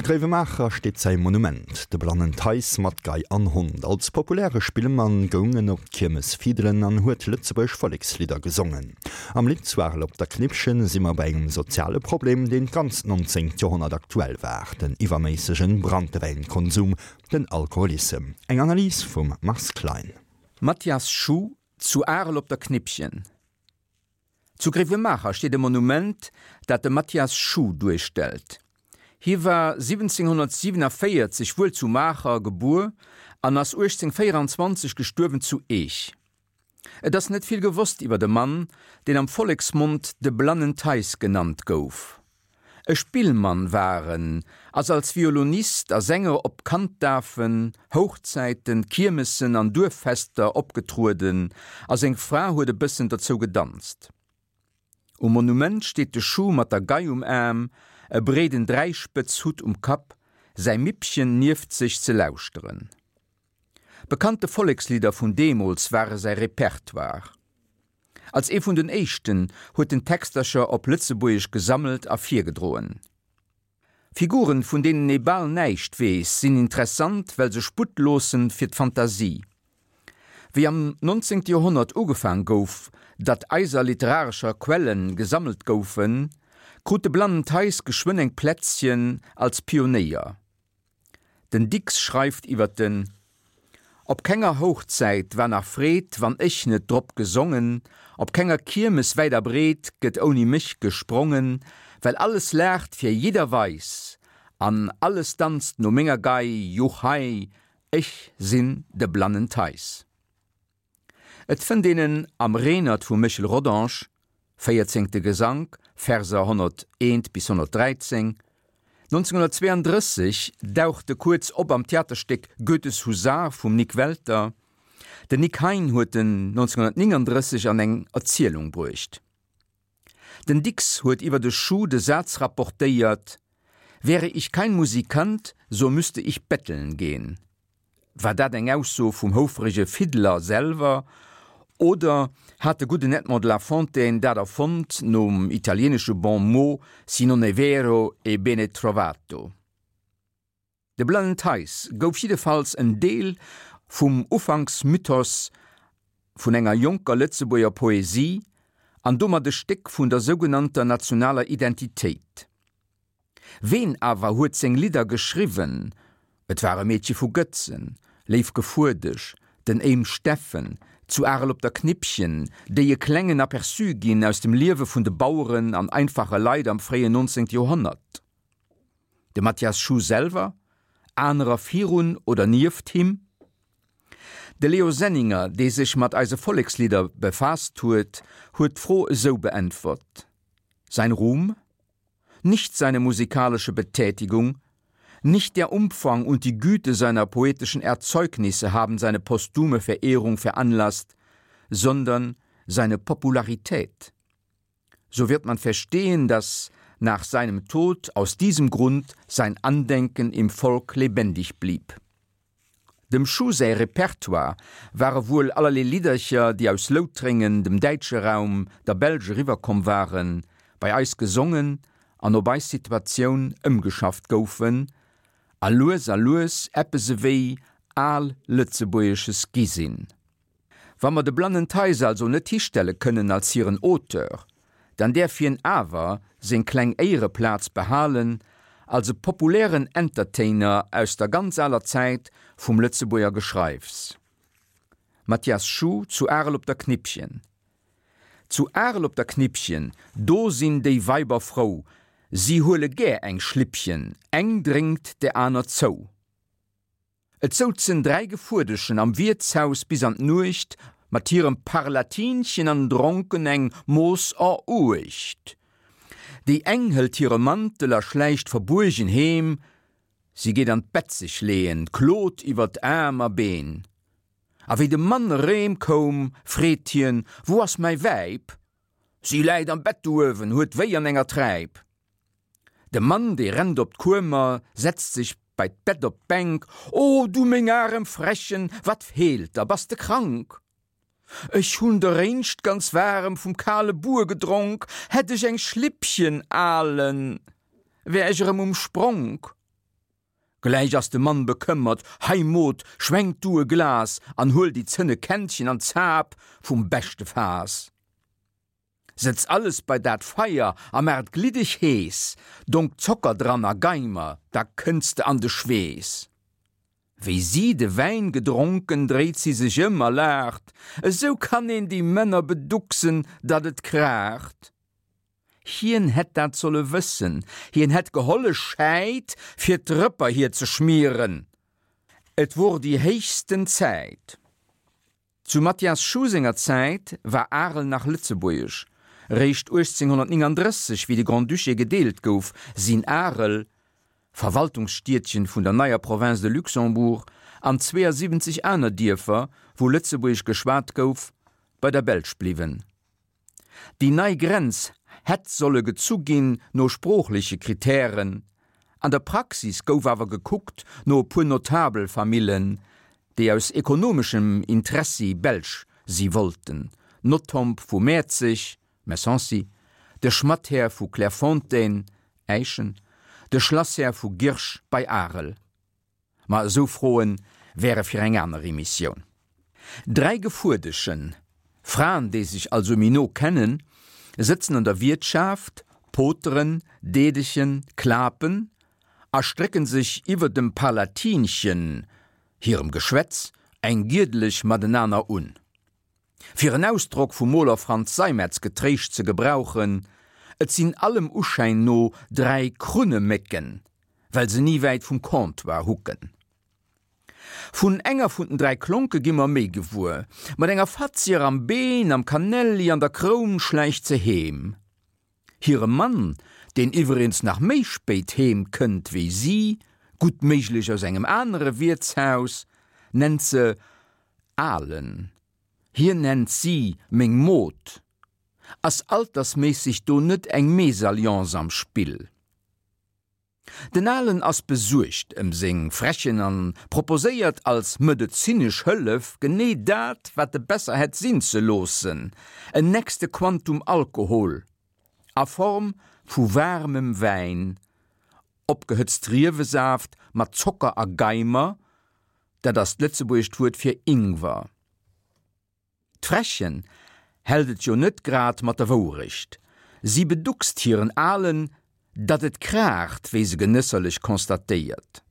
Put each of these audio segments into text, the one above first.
Gréiwemaacher steet säi Monument, de Blannen Theis mat Gei an Hond. Als populäre Spillmann goung en op d'Kiermes fiddelen an huet lëtzebuergesch Vollekslidder gesongen. Am Lidd Zu Arel op der Knippchen si mer bei engem soziale Problem, deen d'ganzt 19. Joerhonnert aktuell war, den iwwerméissegen Branntewäinkonsum, den Alkoholissem. Eng Analys vum Mars Klein. Mathias Schuh, Zu Arel op der Knippchen. Zu Gréiwemaacher steet e Monument, dat de Mathias Schuh duerstellt. Hie war 1747 wuel zu Maacher gebuer an ass 1824 gestuerwen zu Eech. Et ass net vill gewosst iwwer de Mann, deen am Volleksmond de Blannen Theis genannt gouf. E Spillmann war en, ass als Violonist a Sänger op Kanddafen, Houchzäiten, Kiermessen an Duerffester opgetrueden a seng Fra huet e bëssen derzou gedanzt. Um Monument steet de Schuh mat der Gei um Aarm, e breeden Dräispëtzhutt um Kapp, säi Mippchen nieft sech ze lauschteren. Bekannte Vollekslidder vun deemools ware säi Repertoire. Als ee vun den éischten huet en Textercher op Lëtzebuergesch gesammelt a virgedroen. Figuren, vun deenen ee bal näischt weess, sinn interessant, well se Sputt loossen fir d'Fantasie. Wéi am 19. Joerhonnert ugefaang gouf, datt eiser literarescher Quelle gesammelt goufen, krut de Blannen Theis geschwënn eng Plätzchen als Pionéier. Den Dicks schreift iwwer den Op kenger Houchzäit war nach Freed, wann ech net drop gesongen, op kenger Kiermes wäit a breet gëtt ouni mech gesprongen, well alles laacht fir jidder Weis an alles danzt no menger Gei, juchhei, ech sinn de Blannen Theis. Et fënnt een en am Renert vum Méchel Rodange, véierzéngte Gesank, Verser 101 bis 113. 1932 daucht e kuerz op am Theaterstéck Goethes Husar vum Nik Welter. Den Nik Hein huet en 1939 an eng Erzielung bruecht. Den Dicks huet iwwer de Schuh de Saz rapportéiert, Wäre ich kein Musikant, so müsste ich betteln gehen. War dat eng Ausso vum houfrege Fiddler selwer oder hat de gudden Edmond de la Fontaine dat erfonnt nom italieenesche Bon mot Si non è vero, è bene trovato? De Blannen Theis gouf jiddefalls en Deel vum Ufanksmythos vun enger jonker Lëtzebuerger Poesie an domat e Stéck vun der sougenannter nationaler Identitéit. Ween awer huet seng Lidder geschriwwen? Et war e Meedche vu Gëtzen, Léif Gefuerdesch, den Éim Steffen, zu Arel op der Knippchen, déi e klengen Aperçu ginn aus dem Liewe vun de Baueren an einfache Leit am fréien 19. Joerhonnert. De Mathias Schuh selwer? Anerer virun oder nieft him? De Leo Senninger, dee sech mat eise Vollekslidder befaasst huet, huet d'Fro esou beäntwert, Sein Ruhm? Nicht seine musikalische Betätigung, nicht der Umfang und die Güte seiner poetischen Erzeugnisse haben seine posthume Verehrung veranlasst, sondern seine Popularität. So wird man verstehen, dass nach seinem Tod aus diesem Grund sein Andenken im Volk lebendig blieb. Dem Schuh säi Repertoire ware wuel allerlee Liddercher, déi aus Loutrengen, dem däitsche Raum, der Belsch eriwwerkomm waren, bei eis gesongen an op eis Situatioun ëmgeschafft goufen a lues a lues eppes ewéi al Lëtzebuergesches gi sinn. Wa mer de Blannen Theis also net histelle kënnen als hiren Auteur, dann däerf hien awer seng kleng Éiereplaz behalen als e populären Entertainer aus der ganz aler Zäit vum Lëtzebuerger Geschreifs. Mathias Schuh zu Arel op der Knippchen Zu Arel op der Knippchen, do sinn déi Weiber frou, si huele gär eng Schlippchen, eng drénkt der aner zou. Et souzen 3 Gefuerdeschen am Wiertshaus bis an d'Nuecht mat hirem Parlatinchen an dronken eng Mooss Eruecht. Déi eng hëlt hire Mantel a schläicht verbuergen heem, si geet an d'Bett sech leeën, klot iwwer Aarm a Been. A wéi de Mann erém koum, freet hien, Wou ass mäi Wäib? Si läit am Bett do uewen, huet wéi an enger Träip. De Mann, dee rennt op d'Kuemer, setzt sech bei d'Bett op d'Bänk, O du meng arem Frechen, wat feelt der, bass de krank? Ech hun deréinscht ganz waarem vum kale Buer gedronk, hätt ech eng Schlippchen alen, wär ech erëm um Spronk. Gläich ass de Mann bekëmmert, Hei Mod, schwenk du e Glas an huel déi zënne Kännchen an Zap vum beschte Faass. Sëtz alles bei dat Feier a maach et gliddeg hees, donk Zocker dran a Geimer, da kënns de an de Schweess. Wéi si de Wäin gedronken, dréit si sech ëm a laacht, Esou kann een déi Männer beducksen, datt et kraacht. Hien hätt dat solle wëssen, hien hätt geholle Schäit, fir d'Rëpper hir ze schmieren, et wor déi héichsten Zäit. Zu Mathias Schuh senger Zäit war Arel nach lëtzebuergesch. Réischt 1839, wéi de Grand-Duché gedeelt gouf, sinn Arel, Verwaltungsstiedchen vun der neier Province de Luxembourg, an 72 aner Dierfer, wou Lëtzebuergesch geschwat gouf, bei der Belsch bliwwen. Déi nei Grenz hätt solle gezu ginn no sproochleche Kritären, an der Praxis gouf awer gekuckt no e puer Notabelfamillen, déi aus ekonomeschem Interessi Belsch si wollten, Nothomb vu Mäerzeg, Messancy, de Schmatthär vu Clairefontaine, Äischen, de Schlasshär vu Girsch bei Arel. Ma esou Froen wäre fir eng aner Emissioun. Dräi Gefuerdeschen, Fraen déi sech also méi no kennen, sëtzen an der Wiertschaft, poteren, deedechen, klapen a strécken sech iwwer dem Palatinchen hirem Geschwätz eng giedeleg matenaner un. Fir en Ausdrock vum Moler Franz Seimetz getréischt ze gebrauchen, Et sinn allem Uschäin no dräi Krunnemécken, well se ni wäit vum Comptoir hucken. Vun enger vun den dräi Klonke gi mer méi gewuer. Mat enger Fatzier am Been, am Kanelli an der Kroun schläicht se heem. Hire Mann, deen iwwereens nach méi spéit heem kënnt wéi si, gutt méiglech aus engem anere Wiertshaus, nennt se Alen. Hien nennt si meng Mod. Ass altersméisseg do net eng Mésalliance am Spill? Den Alen ass besuergt ëm seng Frechen an proposéiert als medezinesch Hëllef genee dat, wat e besser hätt sinn ze loossen, en nächste Quantum Alkohol a Form vu waarmem Wäin, opgehëtzt Riewesaaft mat Zocker a Geimer, dat ass d'lëtzebuergescht Wuert fir Ingwer. D'Frächen hält et jo net grad mat der Wourecht. Si beduckst hiren Alen, datt et kraacht, wéi se genësserlech constatéiert.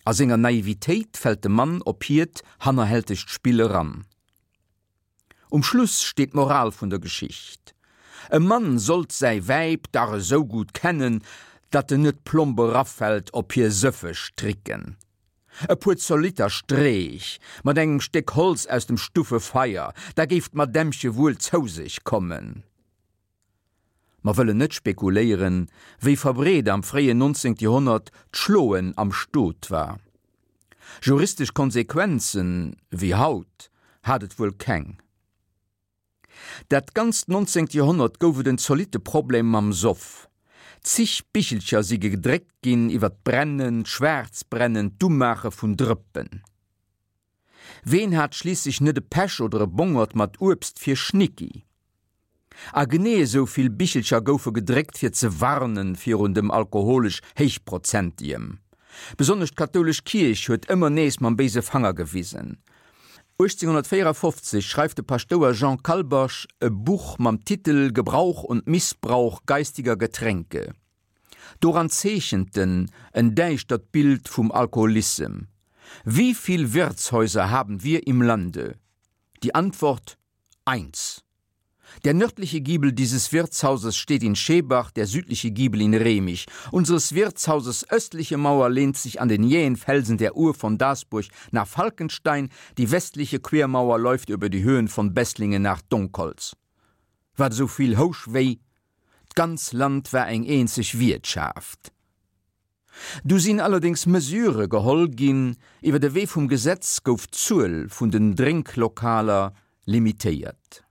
A senger Naivitéit fält de Mann op hiert hannerhältegt Spill eran. Um Schluss steet d'Moral vun der Geschicht, E Mann sollt säi Wäib dach esou gutt kennen, datt en net plomp erafält op hir sëffeg Tricken. E puer zolitter Streech mat engem Stéck Holz aus dem Stuffefeier, da géif d'Madämmche wuel zou sech kommen. Mer wëllen net spekuléieren, wéi verbreet am fréien 19. Joerhonnert d'Schloen am Stot war. Juristesch Konsequenzen, wéi haut, hat et wuel keng. Dat ganzt nonzéngt Joerhonnert gouf et en zolitte Problem mam Soff. Zig Bichelcher si gedréckt ginn iwwer d'Brennen, d'Schwaarzbrennen, d'Umaache vun Drëppen. Ween hat schliisslech net e Pech oder e Bongert mat Uebst fir Schnicki? A genee esou vill Bichelcher goufe gedréckt fir ze warnen virun dem alkoholesch Héichprozentigem. Besonnesch d'kathoulesch Kierch huet ëmmer nees mam béise Fanger gewisen. 1854 schreift de Paschtouer Jean Kalbasch e Buch mam Titel Gebrauch und Missbrauch geistiger Getränke. Doran zeechent en en däischtert Bild vum Alkoholissem. Wie viel Wirtshäuser haben wir im Lande? Die Antwort, Eins. Der nördliche Giebel dieses Wirtshauses steht in Schebach, der südliche Giebel in Remich. Unseres Wirtshauses östliche Mauer lehnt sich an den jähen Felsen der Uhr von Dasburg nach Falkenstein, die westliche Quermauer läuft über die Höhen von Besslingen nach Donkholz. Wat esou vill housch wéi, D'ganz Land war eng eenzeg Wiertschaft. Du sinn allerdéngs Mesure geholl ginn, iwwer de Wee vum Gesetz gouf d'Zuel vun den Drénklokaler limitéiert.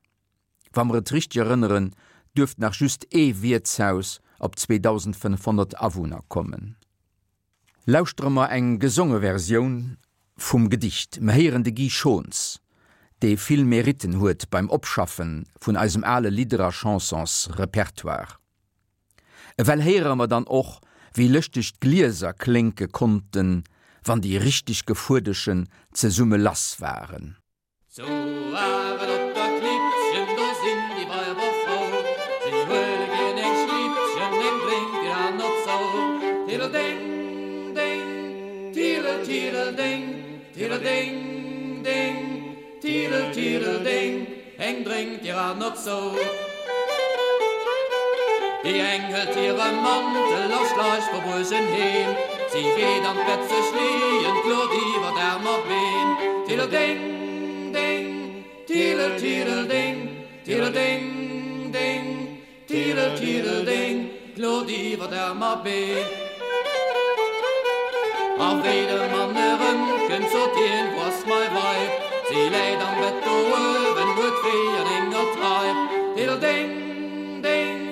Wa mer et richteg erënneren, duerft nach just ee Wiertshaus op 2.500 Awunner kommen. Lauschtere mer eng gesonge Versioun vum Gedicht. Mer héieren de Guy Schons, dee vill Meritten huet beim Opschaffe vun eisem ale Lidder a Chansonsrepertoire. Ewell héiere mer dann och, wéi lëschteg d'Glieser klénke konnten, wann déi richteg Gefuerdeschen zesumme lass waren. Zu Arel op der Knippchen, do sinn déi Weiber frou, Si huele gär eng Schlippchen, eng drénkt déi aner zou. Tiddeldeng, deng, tiddel, tiddeldeng, tiddeldeng, deng, tiddel, tiddeldeng, eng drénkt déi aner zou. Déi eng hëlt hire Mantel a schleicht verbuergen heem, si geet an d'Bett sech leeën, klot iwwer Aarm a Been. Tiddeldeng, deng, tiddel, tiddeldeng, tiddeldeng, deng, tiddel, tiddeldeng, klot iwwer Aarm a Been. A wéi de Mann erëmkënnt, sot hien, Wou ass mei Weib? Si läit am Bett do uewen, huet wéi an enger Treib. Tiddeldeng! Ding,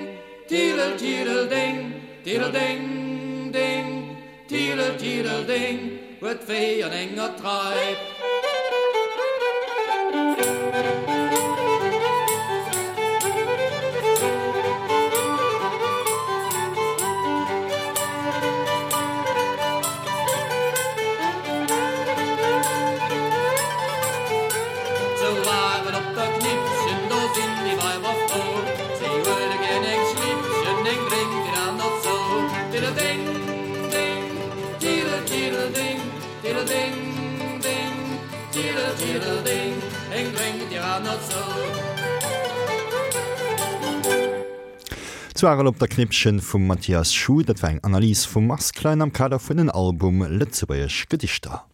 tiddel, tiddel, ding, tiddel, ding, ding, tiddel, tiddel, ding, huet wéi an enger Treib. Zu Arel op der Knippchen, do sinn déi Weiber frou, Si huele gär eng Schlippchen, eng drénkt déi aner zou. Tiddeldeng, deng, tiddel, tiddeldeng, tiddeldeng, deng, tiddel, tiddeldeng, eng drénkt déi aner zou. Zu Arel op der Knippchen vum Mathias Schuh, dat war eng Analys vum Mars Klein am Kader vun den Album Lëtzebuergesch Gedichter.